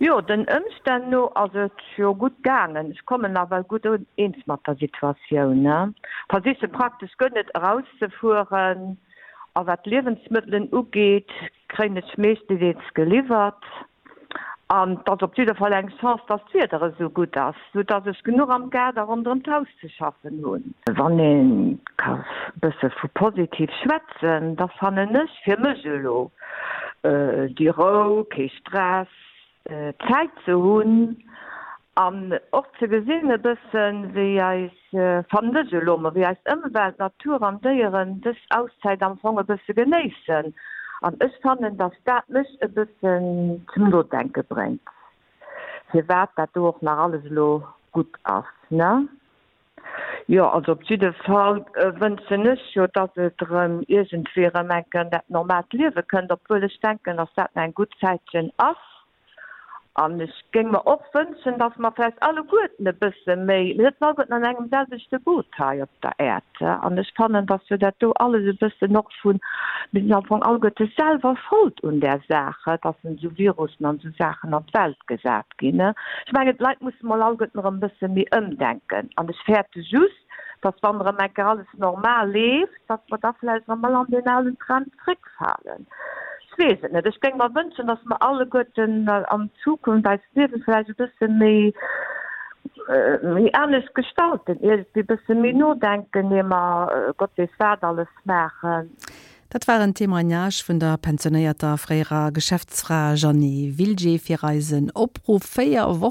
Jo, den Ëmstänn no ass et jo gutt gaangen. Ech kommen nawell gutt eens mat der Situatioun. Versiche praktesch guer net erauszefueren a wat d'Liewensmëttelen ugeet, kréien ech meeschtedeels geliwwert. An 't ass op jidder Fall eng Chance, dass d'Wieder esou gutt ass, sou dass ech genuch am Gaart a ronderëm d'Haus ze schaffen hunn. Wann ee ka bësse vu positiv schwätzen, da fannen ech fir mech elo déi Rou, kee Stress, Zäit ze hunn an och ze gesinn e bëssen, wéi eis, fannen ech elo mol, wéi eis Ëmwelt, Natur an Déieren dës Auszäit am Fong e bësse genéissen. An ech fannen, dass dat mech e bëssen zum Nodenke bréngt, firwat dat do och nach alles elo gutt ass, ne? Jo, also op jidde Fall wënschen ech jo, dass et erëm iergendwéi erëm eng Kéier an dat normaalt Liewe kënnt, obwuel ech denken, dass dat nach eng gutt Zäitchen ass. An ech géing mer och wënschen, dass mer vläicht alleguerten e bësse méi, mir sëtzen alleguerten an engem selwechte Boot hei op der Äerd, an ech fannen, dass jo dat do alles e bëssen och vun, mir sinn am Fong alleguerte selwer Schold un där Saach, dass esou Virussen an esou Saachen an d'Welt gesat ginn. Ech mengen, d'Leit musse mol alleguerten erëm e bësse méi ëmdenken. An ech fäerte just, dass, wann erëm eng Kéier alles normal leeft, dass mer da vläicht erëm all an deen alen Trend zréckfalen. Ech weess et net. Ech géing mer wënschen, dass mer alleguerten an Zukunft eist Liewe vläicht e bësse méi, méi anescht gestalten, iergendwéi e bësse méi nodenken, ier mer Gott weess wat alles maachen. Dat war en Témoignage vun der pensionéierter fréierer Geschäftsfra Jeanny Wilgé fir eisen Opruff 4 Wochen.